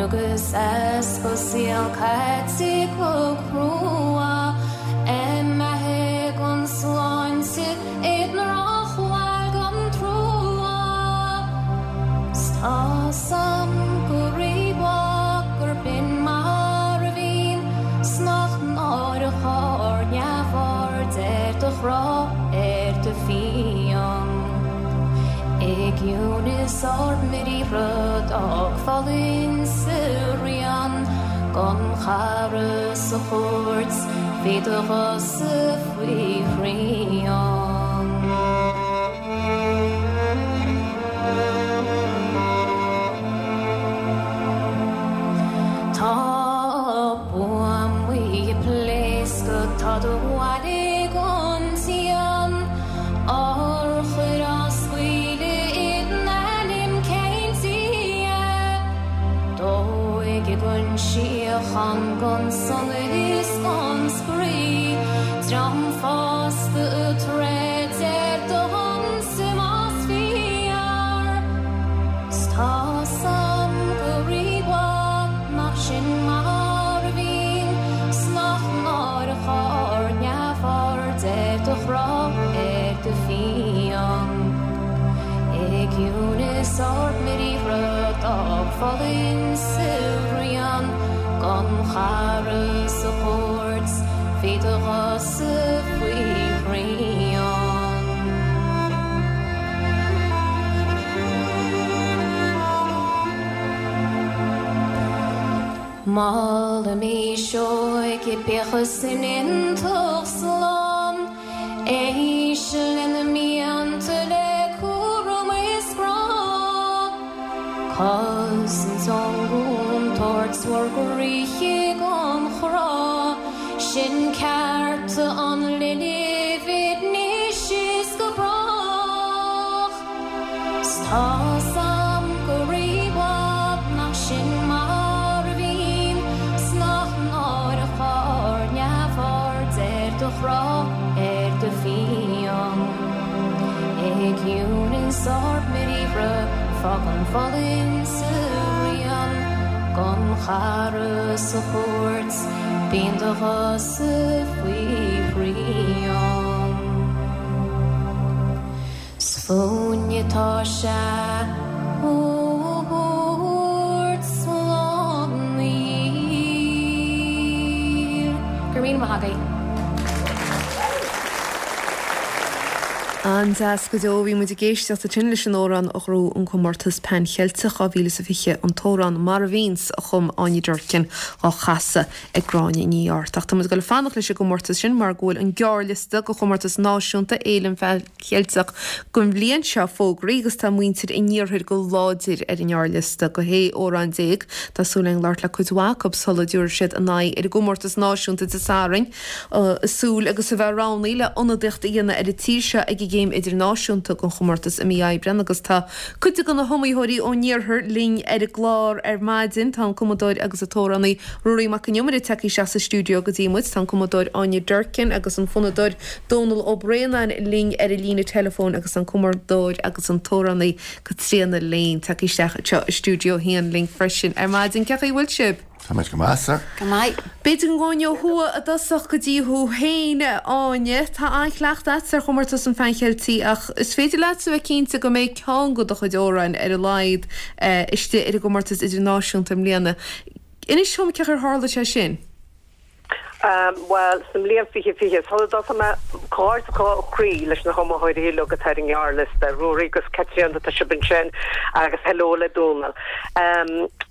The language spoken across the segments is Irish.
Agus easpa saol caite go crua, Imithe gan sláinte i ndrochbhail gan trua. 'S tá's a'm go rímhaith gurb in mar a bhíonn 's nach náireach ár neamhaird ar do chrá ar do phian. I gciúnas ár mbriathra d'fhág foluain sa rian gan chara sa chúirt bhí do ghosa faoi shrian. Tá buamaí ag pléascadh tá do bhaile gan díon. Urchair á scaoileadh i n-ainm cén Dia? Dóigh gan síocháin gan sonas is gan spraoi, dream fásta ag troid ar do shonsa más fíor. 'S tá's a'm go rímhaith nach sin mar a bhíonn 's nach náireach ár neamhaird ar do chrá ar do phian. I gciúnas ár mbriathra d'fhág foluain sa rian gan chara sa chúirt bhí do ghosa faoi shrian. Molaimis óige bíodh san iontach slán, éist lena mianta le cúram is grá. Cosaint ón gcontúirt bhur gcroíthe gan chrá, sin cearta an linbh anois is go brách. 'S tá's a'm go rímhaith nach sin mar a bhíonn 's nach náireach ár neamhaird ar do chrá ar do phian. I gciúnas ár mbriathra fágann foluain sa rian gan chara sa chúirt bíonn do ghosa faoi shrian. 'S fúinne atá sé a thabhairt slán aniar. Go raibh míle maith agaibh. An-deas go deo. Bhí muid ag éisteacht ansin leis an amhrán a ghnóthaigh an comórtas Pan Cheilteach 2020, an t-amhrán Mar a Bhíonns a chum Áine Durkin á chasadh ag Gráinne Ní Airt. Ach tá muid ag dul ag fanacht leis an gcomórtas sin mar go bhfuil an gearrliosta do chomórtas náisiúnta Fhéile an Phean Cheilteach don bhliain seo fógraithe agus tá muintir an iarthair go láidir ar an ngearrliosta do 16 amhrán. Tá súil againn labhairt le cuid mhaith acu sula dtabharfaidh siad a n-aghaidh ar an gcomórtas náisiúnta Dé Sathairn. Ag súil agus a bheith roghnaithe le ionadaíocht a dhéanamh ar an tír seo ag an gcéim idirnáisiúnta den chomórtas i mí Aibreán agus tá cuid de na hiomaitheoirí ón iarthar linn ar an gclár ar maidin. Tá an cumadóir agus an t-amhránaí Ruairí Mac Con Iomaire tagtha isteach sa stiúideo go dtí muid. Tá an cumadóir Áine Durkin agus an fonnadóir Dónal Ó Braonáin linn ar an líne teileafóin agus an cumadóir agus an t-amhránaí Caitríona Lane tagtha isteach anseo i stiúideo a haon linn freisin ar maidin. Cén chaoi a bhfuil sibh? Tá muid go maith, sir. Go maith. B'fhéidir go ngabhfainn ó thuaidh i dtosach go dtí thú féin, a Áine. Tá an-chleachtadh agat ar chomórtas an Phean Cheiltigh ach is féidir leatsa a bheith cinnte go mbeidh ceann de do chuid amhráin ar a laghad istigh ar an gcomórtas idirnáisiúnta i mbliana. Inis dom cén chaoi ar tharla sé sin. Bhuel, sa mbliain 2020, sula dtosóidh mé, comhghairdeas ó chroí leis na hiomaitheoirí uilig atá ar an ngearrliosta, Ruairí agus Caitríona, tá sibh ansin, agus hello le Dónal.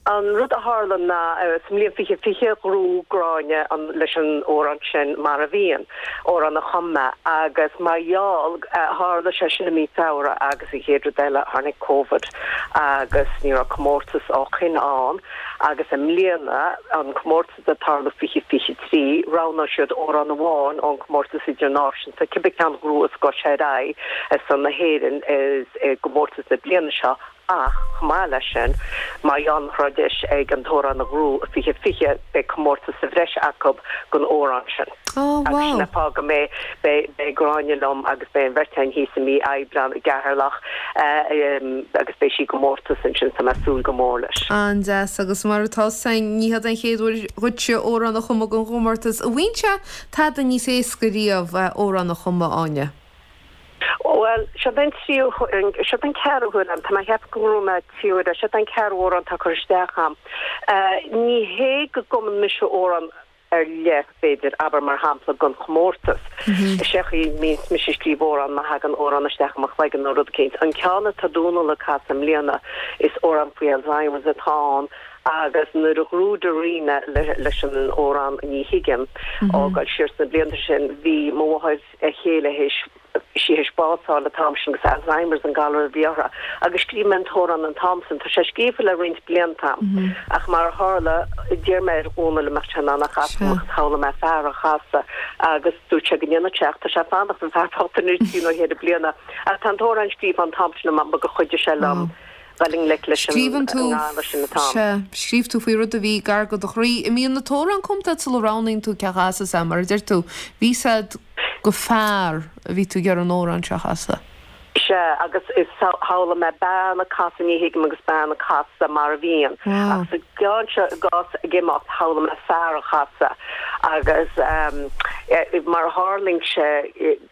An rud a tharla ná, sa mbliain 2020, ghnóthaigh Gráinne an, leis an amhrán sin, Mar a Bhíonn, amhrán a chum mé, agus mar gheall, tharla sé sin i mí Feabhra agus an chéad rud eile, tháinig Covid agus ní raibh comórtas ó shin ann agus i mbliana, an comórtas, ag tarlú 2023, roghnóidh siad amhrán amháin ón gcomórtas idirnáisiúnta, cibé ceann a ghnóthós gabhfaidh sé ar aghaidh ar son na hÉireann i gcomórtas na bliana seo. Ach, chomh maith leis sin, mar gheall nach raibh deis ag an t-amhrán a ghnóthú i 2020, beidh comórtas sa bhreis acu don amhrán sin. Oh, Agus wow. sin an fáth go mbeidh, beidh, beidh Gráinne liom agus beidh an bheirt againn thíos i mí Aibreán i gCeatharlach agus beidh sí i gcomórtas ansin, tá mé ag súil go mór leis. An-deas, agus mar atá 's againn, ní hiod an chéad uair dhuitse amhrán a chumadh don chomórtas. An bhíonn sé tada níos éasca riamh amhrán a chumadh, Áine? Bhuel, seod é an tríú, seod é an ceathrú huair a'm, tá mé a cheapadh go ngnóthaigh mé trí huaire, seod é an ceathrú amhrán atá curtha isteach a'm. Ní hé go gcumann mise amhrán ar leith, b'fhéidir, abair mar shampla, don chomórtas. Is é an chaoi a mbíonns mise ag scríobh amhrán má thagann amhrán isteach i mo chloigeann nó rud eicínt. An ceann atá Dónal ag casadh i mbliana, is amhrán faoi Alzheimer's atá ann agus nuair a ghnóthaigh Darina leis an amhrán Ní Thuigim, ag dul siar sna blianta sin, bhí mo mháthair, a chéile théis sí théis bás a fháil an t-am sin agus Alzheimer's an galar a bhí uirthi agus scríobh mé an t-amhrán an t-am sin. Tá sé scríofa le roinnt blianta a'm ach mar a tharla d'iarr mé ar Dhónal an mbeadh sé in ann é a chasadh dom agus shamhlaigh mé fear á chasadh agus dúirt sé go ndéanfadh sé ach tá sé ag fanacht an fear bocht anois trí nó cheithre bliana ach tá an t-amhrán scríofa an t-am sin a'm gur chuidigh sé liom dul i ngleic leis an Scríobhann tú, ngalar sin an t-am. sea, scríobh tú faoi rud a bhí gar go do chroí. An mbíonn an t-amhrán cumtha agat sula roghnaíonn tú cé a chasfas é, mar a deir tú, bhí 's a'd gur fear a bhí tú ag iarraidh an amhrán seo a chasadh. Sea, agus is shamhlaigh mé bean ag casadh Ní Thuigim agus bean ag casadh Mar a Bhíonn. Wow. Ach sa gceann seo, i gcás Ag Imeacht, shamhlaigh mé fear a chasadh agus mar a tharlaíonn sé,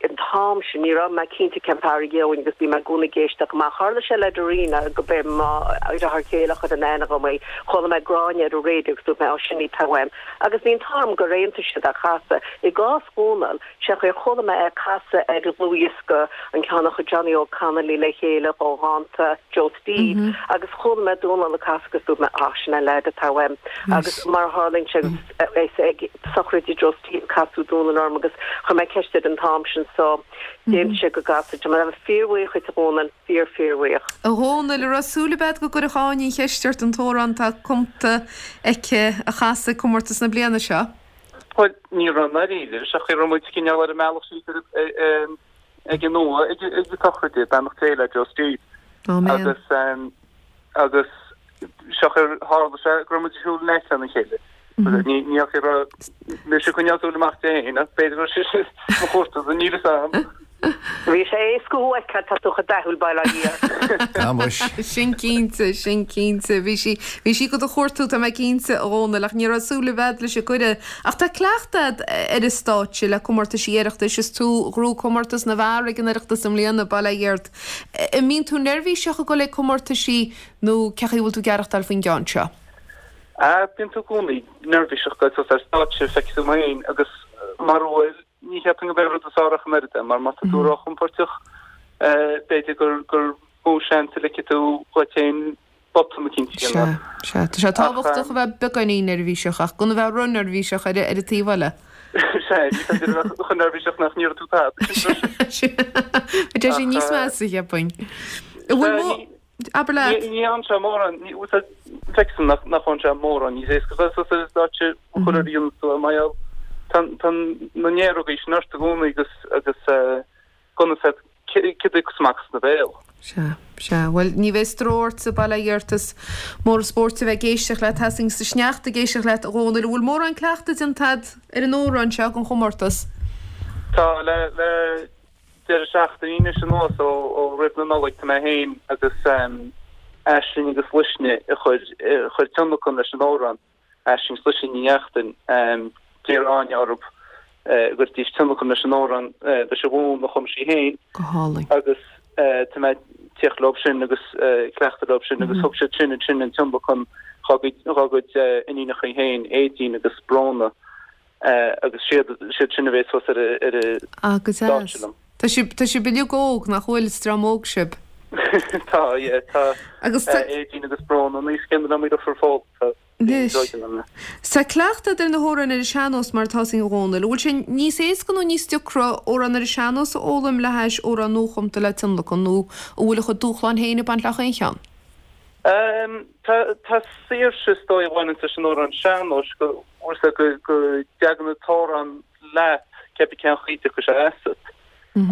An t-am sin, ní raibh mé cinnte cén fear a gheobhainn agus bhí mé i gcónaí ag éisteacht amach. Tharla sé le Darina go b'é mo dheartháir céile a chuir in aithne dhom í. Chuala mé Gráinne ar an raidió agus dúirt mé, 'Á, sin í atá uaim. Agus bhí an t-ádh orm gur aontaigh siad é a chasadh. I gcás Dhónaill, sé chaoi ar chuala mé é ag casadh ar dhlúthdhiosca, an ceann a chuir Johnny Óg Connolly le chéile ó dhánta Joe Steve, agus chuala mé Dónal ag casadh agus dúirt mé, 'Á, sin é an leaid atá uaim. Agus mar a tharlaíonn sé, is ag sochraid Joe Steve casadh Dónal orm agus chuir mé ceist air an t-am sin so d'aontaigh sé go gcasfadh sé. Mar fíorbhuíoch dhuit a Dhónaill, fíor fíorbhuíoch. A Dhónaill, an raibh súil agat go gcuirfeadh Áine an cheist ort an t-amhrán atá cumta aici a chasadh ag comórtas na bliana seo? Bhuel, ní raibh i ndáiríre, sé chaoi a raibh muid cineál ar an mbealach síos ag an Nua ag an tsochraid, beannacht Dé le Joe Steve. Áiméan. Agus agus sé chaoi ar tharla sé go raibh muid ag siúl in aice lena chéile. Ní ní chaoi a raibh mise ag coinneáil súil amach di féin ach b'fhéidir go raibh sise mo chuartú, níl fhios a'm. Bhí sé éasca thú a fheiceáil, tá tú chomh dathúil, bail ó Dhia ort. Tá muis. Sin cinnte, sin cinnte. Bhí sí, bhí sí do do chuartú, tá mé cinnte, a Dhónaill, ach ní raibh súil i bhfad leis an gcuireadh. Ach tá cleachtadh a'd ar an stáitse le comórtaisí Oireachtais, is tú a ghnóthaigh comórtas na bhfear ag an Oireachtas i mbliana, bail ó Dhia ort. An mbíonn tú neirbhíseach ag dul ag comórtaisí nó cé chaoi a bhfuil tú ag aireachtáil faoin gceann seo? Ah, bíonn tú i gcónaí neirbhíseach ag dul suas ar stáitse, feicfidh tú mé féin agus mar a bhfuil, ní cheapfainn go b'é rud is fearr ach an oiread é, mar má tá tú róchompóirteach, b'fhéidir gur gur mó seans a ligfidh tú dhuit féin botún eicínt a Sea, dhéanamh. sea. Tá sé tábhachtach a bheith beagáinín neirbhíseach ach gan a bheith ró-neirbhíseach ar an taobh eile. Sea, ní féidir a bheith chomh neirbhíseach nach n-iarrfaidh tú tada. Tá sé níos measa, cheapfainn. An bhfuil mó... Abair leat. Ní fhaigheann sé mórán, feictear nach bhfaigheann sé mórán níos éasca a bheith suas ar an stáitse chuile uair a dhéanann tú é mar gheall tá na néarógaí sin ort i gcónaí agus agus gan fhios agat céard a thiocfas amach as do bhéal. Sea, sea. Bhuel, ní bheidh stró ortsa, bail ó Dhia ort, is mór an spórt a bheith ag éisteacht leat, tá 'fhios againn sa sneachta ag éisteacht leat, a Dhónaill. An bhfuil mórán cleachtaidh déanta agat ar an amhrán seo don chomórtas? Tá, le, le deireadh seachtaine anois anuas ó, ó roimh na Nollag tá mé féin agus Aisling agus Luisne ag cur, ag cur tionlacan leis an amhrán. Aisling 's Luisne Ní Neachtain, d'iarr Áine orthu go gcuirfidís tionlacan leis an amhrán leis an bhfonn a chum sí féin. Go hálainn. Agus tá mé ag tíocht leo sin agus ag cleachtadh leo sin agus thug siad sin ansin an tionlacan dhá gcuid iníonacha féin, Aedín agus Bróna, agus siad sin a bheas thuas ar an Ah, go stáitse deas. liom. Tá sibh, tá sibh uilig óg, nach bhfuil? Is dream óg sibh. Tá, yeah, tá Agus tá. Aedín agus Bróna an aois chéanna liom, deirfiúr Phól, tá Anois. níos óige ná mé. Tá cleachtadh agat ar na hamhráin ar an sean-nós mar atá 'fhios againn a Dhónaill. An bhfuil sé níos éasca nó níos deacra amhrán ar an sean-nós a fhoghlaim le hais amhrán nuachumta le tionlacan nó an bhfuil a chuid dúshláin féin ag baint le chaon cheann? Tá, tá saoirse is dóigh a bhaineanns leis an amhrán sean-nóis go, bhfuil 'fhios agat, go, go dtagann an t-amhrán leat, cébí cén chaoi a dtiocfaidh sé asat.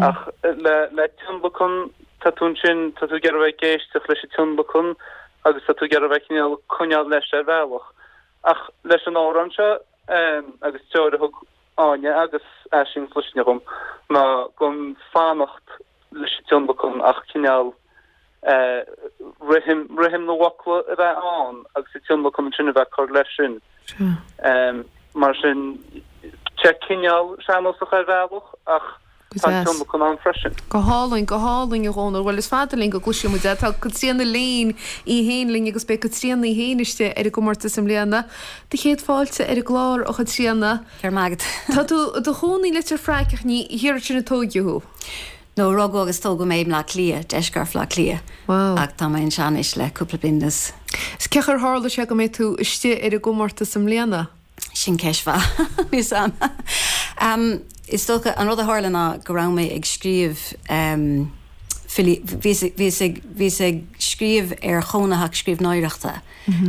Ach le, le tionlacan. Tá tú ansin, tá tú ag iarraidh a bheith ag éisteacht leis an tionlacan agus tá tú ag iarraidh a bheith cineál coinneáil leis ar bhealach. Ach leis an amhrán seo agus treoir a thug Áine agus Aisling agus Luisne dhom ná gan fanacht leis an tionlacan ach cineál rithim, rithim na bhfocla a bheith ann agus an tionlacan ansin a bheith ag cur leis sin. Mar sin, tá sé cineál sean-nósach ar bhealach ach Go tá an deas. tionlacan ann freisin. Go hálainn, go hálainn, a Dhónaill. Bhuel, is fada linn go gcloisfidh muid é. Tá Caitríona Lane í fhéin linn agus beidh Caitríona í fhéin istigh ar an gcomórtas i mbliana. Do chéad fáilte ar an gclár, a Chaitríona. Go raibh maith agat. Tá tú i do chónaí i Leitir Fraic ach ní thiar ansin a tóigeadh thú. No, rugadh agus tógadh mé i mBleá Cliath, deisceart Bhleá Cliath. Wow. Ach tá mé anseo anois le cúpla bliain anuas. Is cén chaoi ar tharla sé go mbeidh tú istigh ar an gcomórtas i mbliana? Sin ceist mhaith, níl 's a'm. Is dócha, an rud a tharla ná go raibh mé ag scríobh filí, bhíos, bhíos ag, bhíos ag scríobh ar chónaitheacht scríbhneoireachta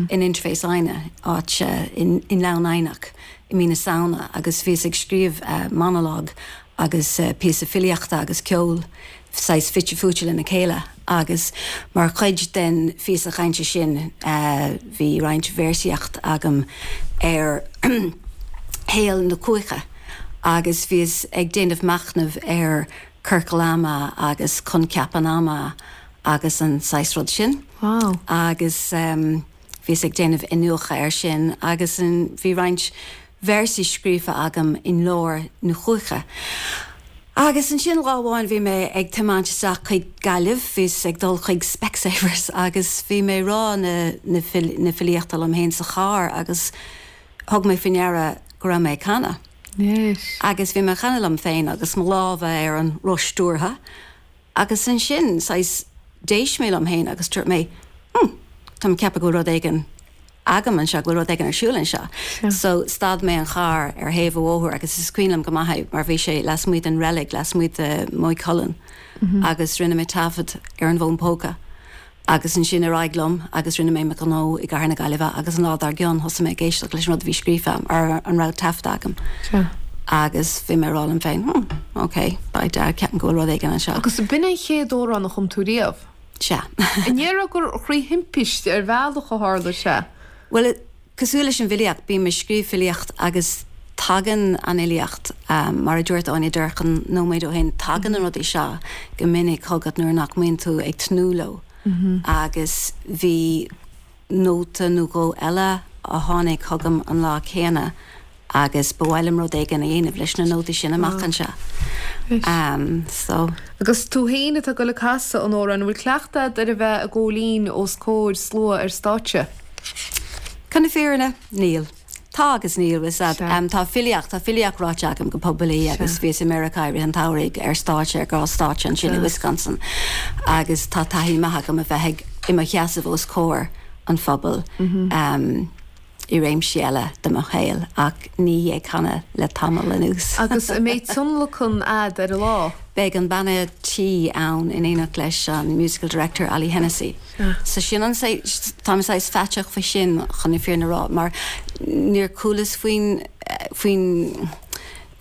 in Interface Aidhne, áit i nGleann Eidhneach i mí na Samhna agus bhíos ag scríobh monalóg agus píosa filíochta agus ceol saghas fite fuaite lena chéile agus mar chuid den phíosa chainte sin bhí roinnt véarsaíocht agam ar shaol na cuaiche agus bhíos ag déanamh machnaimh ar ciorcal ama agus coincheap an ama agus an saghas rud sin agus bhíos ag déanamh iniúchadh air sin agus bhí roinnt véarsaí scríofa agam i nglór na cuaiche. Agus ansin lá amháin bhí mé ag tiomáint isteach chuig Gaillimh, bhíos ag dul chuig Specsavers agus bhí mé ag rá na na filíochta liom féin sa charr agus thug mé faoi ndeara go raibh mé ag canadh. Agus bhí mé ag canadh liom féin agus mo lámha ar an roth stiúrtha Agus ansin, saghas, d'éist mé liom féin agus dúirt mé, hmm, táim ag ceapadh go bhfuil rud éigin agam anseo, go bhfuil rud éigin ar siúl anseo. So, stad mé an charr ar thaobh an bhóthair agus is cuimhin liom go maith é mar bhí sé lasmuigh den reilig, lasmuigh de Maigh Cuilinn agus rinne mé taifead ar an bhfón póca. Agus ansin ar aghaidh liom agus rinne mé mo ghnó i gcathair na Gaillimhe agus an lá dár gcionn thosaigh mé ag éisteacht leis an rud a bhí scríofa agam, ar an raibh taifeadta agam. Sea. Agus bhí mé ag rá liom féin, hmm, ok, by dad, ceapaim go bhfuil rud éigin anseo. Agus b'in an chéad amhrán a chum tú riamh? Sea. An ndéarfá gur thrí thimpiste ar bhealach a tharla sé? Bhuel, Cosúil leis an bhfilíocht, bím ag scríobh filíocht agus tagann an fhilíocht, mar a dúirt Áine Durkin nóiméad ó shin, tagann na rudaí seo go minic chugat nuair nach mbíonn tú ag tnúth leo. Agus bhí nóta nó dhó eile a tháinig chugam an lá céanna agus ba mhaith liom rud éigin a dhéanamh leis na nótaí sin amach anseo. So. Agus tú féin atá ag dul ag casadh an amhráin, an bhfuil cleachtadh agat ar a bheith ag gabháil fhoinn os comhair slua ar stáitse? Chun na fírinne, níl. Tá agus níl, bhfuil 's a'd. Tá filíocht, tá filíocht ráite agam go poiblí agus bhíos i Meiriceá i rith an tsamhraidh ar stáitse, ar ghnáthstáitse ansin i Wisconsin agus tá taithí maith agam a bheith ag, i mo sheasamh os comhair an phobail i réimsí eile de mo shaol ach ní ag canadh le tamall anuas. Agus an mbeidh tionlacan a'd ar an lá? Beidh an banna tí ann in éineacht leis an musical director Ollie Hennessy. So sin an saghas, táim saghas faiteach faoi sin chun na fírinne a rá mar níor chualas faoin, faoin,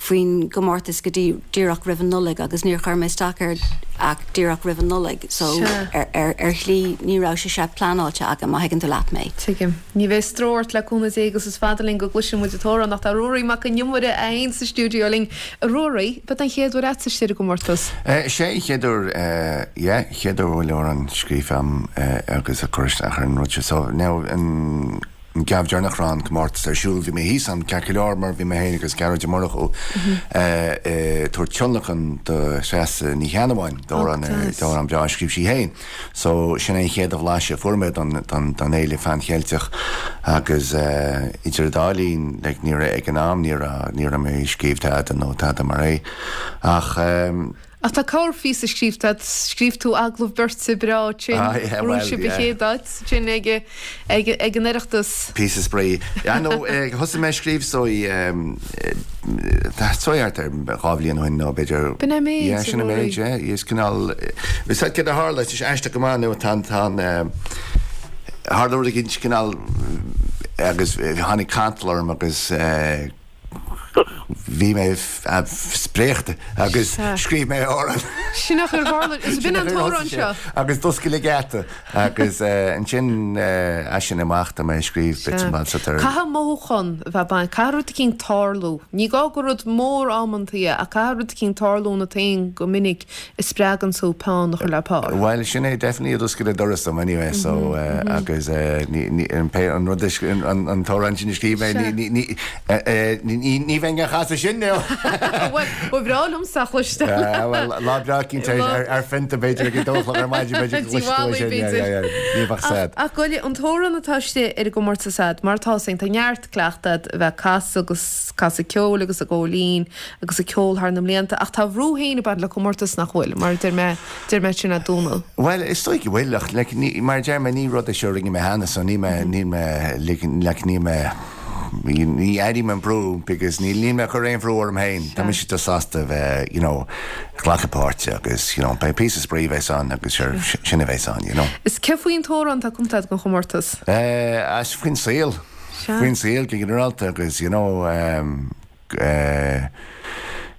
faoin gcomórtas go dtí díreach roimh an Nollaig agus níor chuir mé isteach air ach díreach roimh an Nollaig so ar, ar, ar shlí ní raibh sé seo pleanáilte agam má thuigeann tú leat mé. Tuigim. Ní bheidh stró ort le cúnamh Dé agus is fada linn go gcloisfidh muid an t-amhrán ach tá Ruairí Mac Con Iomaire é fhéin sa stiúideo linn. A Ruairí, ab é an chéad uair agatsa istigh ar an gcomórtas? Is é an chéad uair, yeah, chéad uair a bhfuil amhrán scríofa agam agus a chur isteach ar an rud seo. So, now, an geábh deireanach a raibh an comórtas ar siúl, bhí mé thíos ann ceart go leor mar bhí mé féin agus Gearóid Ó Murchú ag tabhairt tionlacan do Threasa Ní Cheannabháin, d'amhrán breá a scríobh sí féin. So, sin é an chéad bhlaiseadh a fuair mé don, don, don Fhéile Phan-Cheilteach agus idir an dá linn, like, ní raibh, ag an am, ní raibh, ní raibh mé ag scríobh tada nó tada mar é. Ach eh. Ach tá corrphíosa scríobhta agat, scríobh tú agallamh beirte breá ansin, Ah yeah, ghnóthaigh well, sibh an yeah. chéad áit ansin ag, ag, ag an Oireachtas. Píosa spraoi. Yeah, no, eh, thosaigh mé ag scríobh so i, eh, so thart ar 2 bhliain ó shin nó b'fhéidir. B'in é an méid, Yeah, sin an méid, yeah. Is cineál, is céard a tharla, is aisteach go maith nó tá an, tá an, tharla rud éigin cineál agus tháinig cantal orm agus. bhí mé spréachta agus scríobh mé amhrán. Sin é ar tharla, is b'in an t-amhrán seo. Agus d'oscail an geata agus ansin as sin amach tá mé ag scríobh bits and bobs ar. Caithfidh mothúchán a bheith baint, caithfidh rud eicínt tarlú. Ní gá gur rud mór amantaí é ach caithfidh rud eicínt tarlú ionat féin go minic a spreagann tú peann a chur le pár. Bhuel, sin é definitely a d'oscail an doras dom anyway so agus ní, ní, an pé, an rud a, an, an t-amhrán sin a scríobh mé, ní, ní, ní, ní bheinn á chasadh sin now. Bhuel, ba bhreá liomsa a chloisteáil. Bhuel, lá breá cinnte ar, ar phionta b'fhéidir ag a dó a chlog ar maidin b'fhéidir go gcloisfidh tú é sin, yeah, yeah, yeah, ní bheadh sad. Ach gabh i leith, an t-amhrán atá istigh ar an gcomórtas a'd, mar atá féin, tá neart cleachtadh a'd a bheith ag casadh agus casadh ceoil agus ag ól linn, agus ag ceol thar na mblianta, ach tá a bhrú féin ag baint le comórtas nach bhfuil, mar a deir mé, deir mé sin a Dhónaill. Bhuel, is dóigh go bhfuil, ach like, ní, mar a deir mé, ní rud é seo a rinne mé cheana, so níl mé, níl mé, like, like, níl mé, ní airím an brú because níl, níl mé ag cur aon bhrú orm féin, tá mise just sásta a bheith, you know, glacadh páirte agus, you know, beidh píosa spraoi a bheas ann agus sure, sin a bheas ann, you know. Is cé faoin t-amhrán atá cumtha agat don chomórtas? Eh, as faoin saol, faoin saol go ginearálta agus, you know, eh,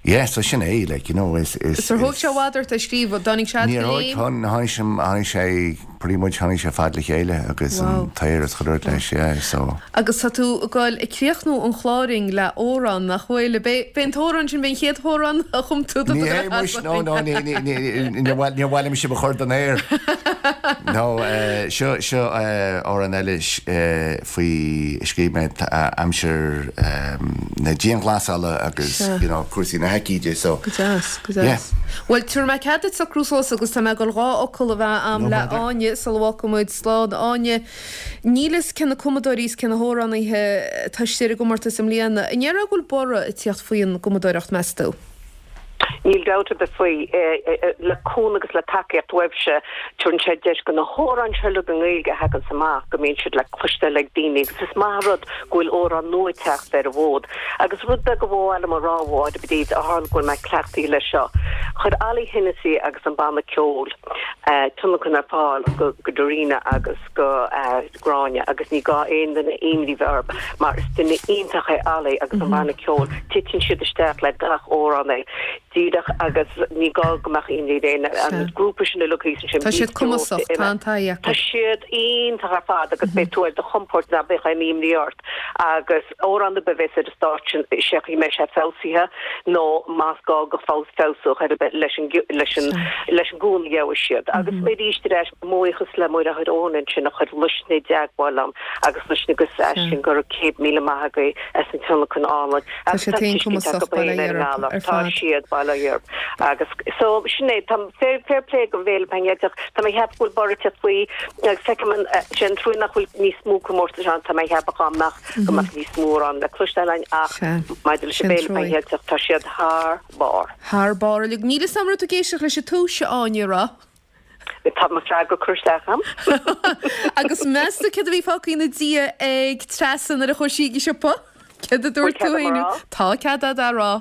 Yeah, so sin é, like, you know, is, is, Is ar thóg sé i bhfad ort é a scríobh, dtáinig sé Níor thóg, tháinig sé, tháinig sé, pretty much tháinig sé fad le chéile agus an t-aer is chuile rud leis, yeah, so. Agus tá tú ag goil ag críochnú an chláir againn le amhrán, nach bhfuil? B'é, b'é an t-amhrán sin, b'é an chéad amhrán a chum tú do Ní hé muis, no, no, ní, ní, ní, níor mhaith, níor mhaith liom sibh a chur den aer. No, seo, seo amhrán eile, faoi a scríobh mé aimsir na dianghlasála agus you know cúrsaí na haicíde so Go deas, go deas. Bhuel, tabharfaidh mé cead duit socrú suas agus tá mé ag dul 2 fhocal a bheith a'm le Áine sula bhfágfaidh muid slán. Áine, níl fhios cé na cumadóirí is cé na hamhránaithe atá istigh ar an gcomórtas i mbliana. An ndéarfá go bhfuil borradh ag tíocht faoin gcumadóireacht, meas tú? Níl dabht ar bith faoi. Le cúnamh agus le tacaíocht uaibhse, tabharann sé deis go na hamhráin seo uilig i nGaeilge a thaganns amach, go mbíonn siad le cloisteáil ag daoine agus is maith an rud go bhfuil amhráin nua ag teacht ar an bhfód. Agus rud beag a ba mhaith liom a rá, a Mháire Bríd, ó tharla go bhfuil mé cleachtaithe leis seo, chuir Ollie Hennessy agus an banna ceoil tionlacan ar fáil go Darina agus go Gráinne agus ní gá aon duine imní bheith orthu mar is duine iontach é Ollie agus an banna ceoil, titeann siad isteach le gach amhránaí díreach agus ní gá go mbeadh imní ar éinne, an grúpa sin uilig thíos ansin, Tá siad cumasach, tá an taithí acu. Tá siad iontach ar fad agus beidh tú ar do chompord ná beadh aon imní ort agus amhrán ar bith a bheas ar an stáitse sé chaoi a mbeidh sé feabhsaithe nó más gá go feabhsódh ar bith leis an leis an leis an gcúnamh a gheobhaidh siad. Agus arís ar ais Mo bhuíochas le Muireadhach Eoin ansin a chuir Luisne i dteagmháil liom agus Luisne agus Aisling go raibh 100,000 maith agaibh as an tionlacan álainn Tá agus siad tá féin tuiscint cumasach, acu bail ó féin ar Dhia an orthu ngalar. ar Tá fad. siad, bail ó Dhia orthu. Agus so sin é, tá fair, fair play don bhFéile Pan Cheilteach. Tá mé ag ceapadh go bhfuil borradh ag teacht faoi agus feicim an, sé an trua nach bhfuil níos mó comórtais ann, tá mé ag ceapadh dá mbeadh, go mbeadh níos mó amhrán le cloisteáil againn ach Sea, maidir leis sin an bhFéile Pan truaí. Cheilteach tá siad thar barr. Thar barr uilig. Níl 'fhios a'm raibh tú ag éisteacht leis an tús, a Áine, a raibh? Tá mo freagra curtha isteach a'm. Agus meas tú céard a bhí fágtha ina diaidh ag Treasa nuair a chuaigh sí ag an siopa? Céard a dúirt tú Bhfuil cead féin? a'm a rá? Tá cead a'd a rá.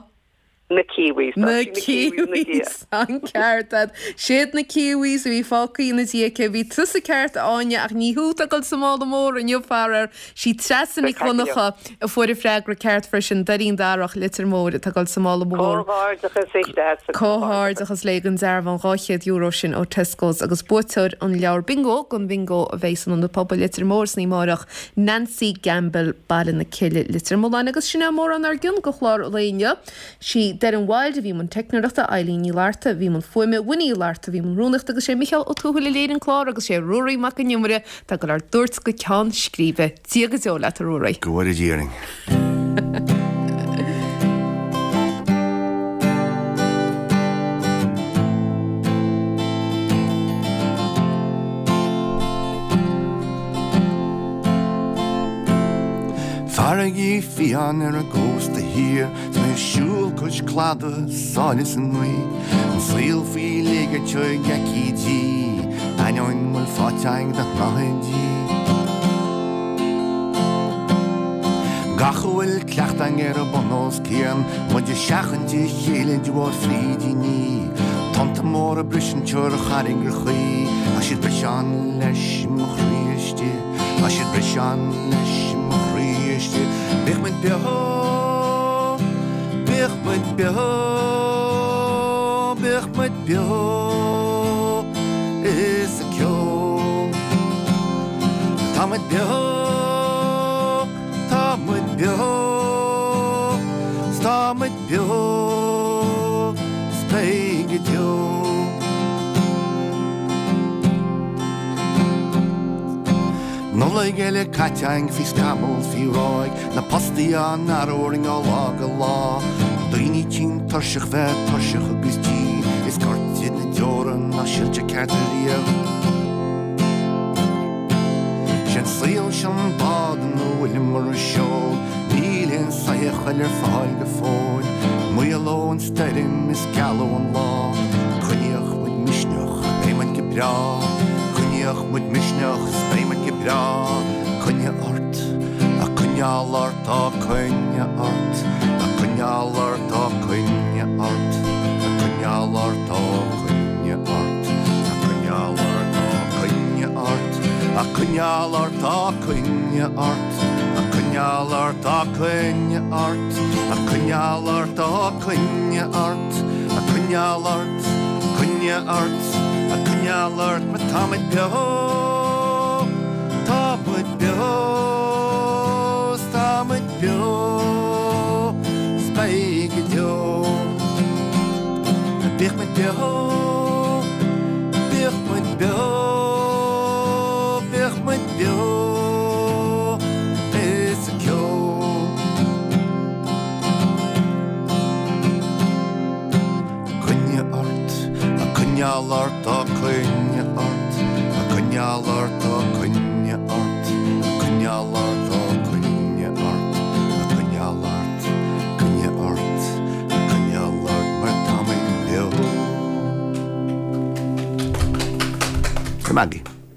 Na Kiwis. Na Tá sí na Kiwis ina diaidh. Kiwis, an ceart a'd. Siad na Kiwis a bhí fágtha ina diaidh aici. Bhí tusa ceart, a Áine, ach ní thú atá ag dul sa mála mór inniu, faraor. Sí Treasa Nic Dhonncha a fuair an freagra ceart freisin, Doirín Darach, Leitir Móir, atá ag dul sa mála mór. Comhghairdeachas léi Treasa. Comhghairdeachas léi don dearbhán €200 sin ó Tesco's agus buaiteoir an leabhar bingo don bhingo a bheidh san Ionad Pobail Leitir Móir san oíche amárach, Nancy Gamble, Baile na Cille, Leitir Mealláin. Agus sin é mórán ár gcionn do chlár an lae inniu. Sí Doireann Wilde a bhí i mbun teicneoireachta, Eileen Ní Fhlatharta a bhí i mbun fuaime, Winnie Uí Fhlatharta a bhí i mbun rúnaíochta agus sé Micheál Ó Tuathail a léirigh an clár agus sé Ruairí Mac Con Iomaire atá ag dul ár dtabhairt go ceann scríbe. Dia go deo leat, a Ruairí. Go bhfóire Dia orainn. Farraigí fiáin ar an gcósta thiar 's mé ag siúl cois cladaigh sáile sa ngaoth, an saol faoi léigear teo ag aicídí, ainneoin bhfuil faighte againn de shnáthaidí. Gach a bhfuil cleachta againn ar an bun os cionn, muid ag seachaint a chéile de bharr frídíní, tonnta móra briseann ar charraigreachaí, tá siad briseán leis mo chroí istigh. Tá siad briseán leis mo chroí istigh. Bíodh muid beo, bíodh. muid beo, bíodh muid beo is ag ceol. Tá muid beo, tá muid beo, 's tá muid beo 's beidh go deo. Nollaig eile caite againn faoi scamall 's faoi ráig, na postaí á n-athrú orainn ó lá go lá, daoine tinn tuirseach bheith tuirseach agus tinn, is gortaithe na deora nach silte ceart ariamh. Sé'n saol seo an bád ina bhfuileamar a seol, níl aon soitheach eile ar fáil go fóill, maolóidh an stoirm is gealóidh an lá, coinníodh muid misneach, beidh muid go breá, coinníodh muid misneach 's beidh muid go breá, coinnigh ort, a coinneáil ort, á coinnigh ort, a coinneáil ort, á coinnigh ort, a coinneáil ort, á coinnigh ort, a coinneáil ort, á coinnigh ort, a coinneáil ort, á coinnigh ort, a coinneáil ort, á coinnigh ort, a coinneáil ort, á coinnigh ort, a coinneáil ort, coinnigh ort, a coinneáil ort mar tá muid beo, tá muid beo, 's tá muid beo, 's beidh go deo. Bíodh muid beo, bíodh muid beo, bíodh muid beo is ag ceol. Coinnigh ort, a coinneáil ort, á coinnigh ort, a coinneáil ort, á coinnigh ort, a coinneáil ort, á coinnigh ort, a coinneáil ort, coinnigh ort, a coinneáil ort mar tá muid beo. Maggie.